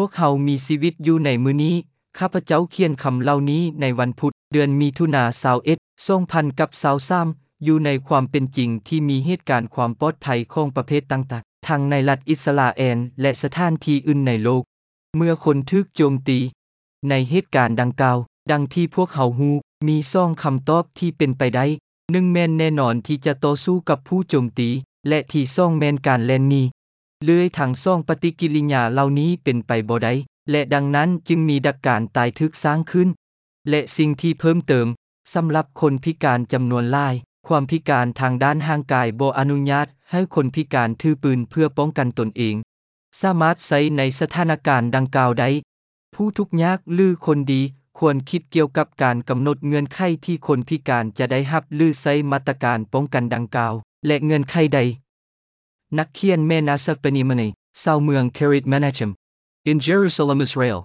ພວກເຮົາມີຊີວິດຢູ່ໃນມື້ນີ້. ຂ້າພະເຈົ້າຂຽນຄຳເຫຼົ່ານີ້ໃນວັນພຸດ ເດືອນມິຖຸນາ ຊາວເອັດ ສອງພັນກັບຊາວສາມ ຢູ່ໃນຄວາມເປັນຈິງທີ່ມີເຫດການຄວາມປອດໄພຂອງປະເພດຕ່າງໆ ທັງໃນລັດອິດສະຣາແອນ ແລະ ສະຖານທີ່ອື່ນໃນໂລກ. ເມື່ອຄົນຖືກໂຈມຕີໃນເຫດການດັ່ງກ່າວ, ດັ່ງທີ່ພວກເຮົາຮູ້, ມີສອງຄຳຕອບທີ່ເປັນໄປໄດ້. ໜຶ່ງແມ່ນແນ່ນອນທີ່ຈະຕໍ່ສູ້ກັບຜູ້ໂຈມຕີ ແລະ ທີສອງແມ່ນການແລ່ນໜີ. ເລື່ອຍທັງສອງປະຕິກິລິຍາເຫຼົ່ານີ້ເປັນໄປບໍ່ໄດ້ ແລະ ດັ່ງນັ້ນຈຶ່ງມີດັກການຕາຍຖືກສ້າງຂຶ້ນ. ແລະ ສິ່ງທີ່ເພີ່ມເຕີມ, ສຳລັບຄົນພິການຈຳນວນຫຼາຍ, ຄວາມພິການທາງດ້ານຮ່າງກາຍບໍ່ອະນຸຍາດໃຫ້ຄົນພິການຖືປືນເພື່ອປ້ອງກັນຕົນເອງ ສາມາດໃຊ້ໃນສະຖານະການດັ່ງກ່າວໄດ້. ຜູ້ທຸກຍາກ ຫຼື ຄົນດີ ຄວນຄິດກ່ຽວກັບການກຳນົດເງື່ອນໄຂທີ່ຄົນພິການຈະໄດ້ຮັບ ຫຼື ໃຊ້ມາດຕະການປ້ອງກັນດັ່ງກ່າວ ແລະ ເງື່ອນໄຂໃດ. ນັກຂຽນແມ່ນາຊາບານີມາເນ ຊາວເມືອງ Kiryat Menachem in Jerusalem, Israel.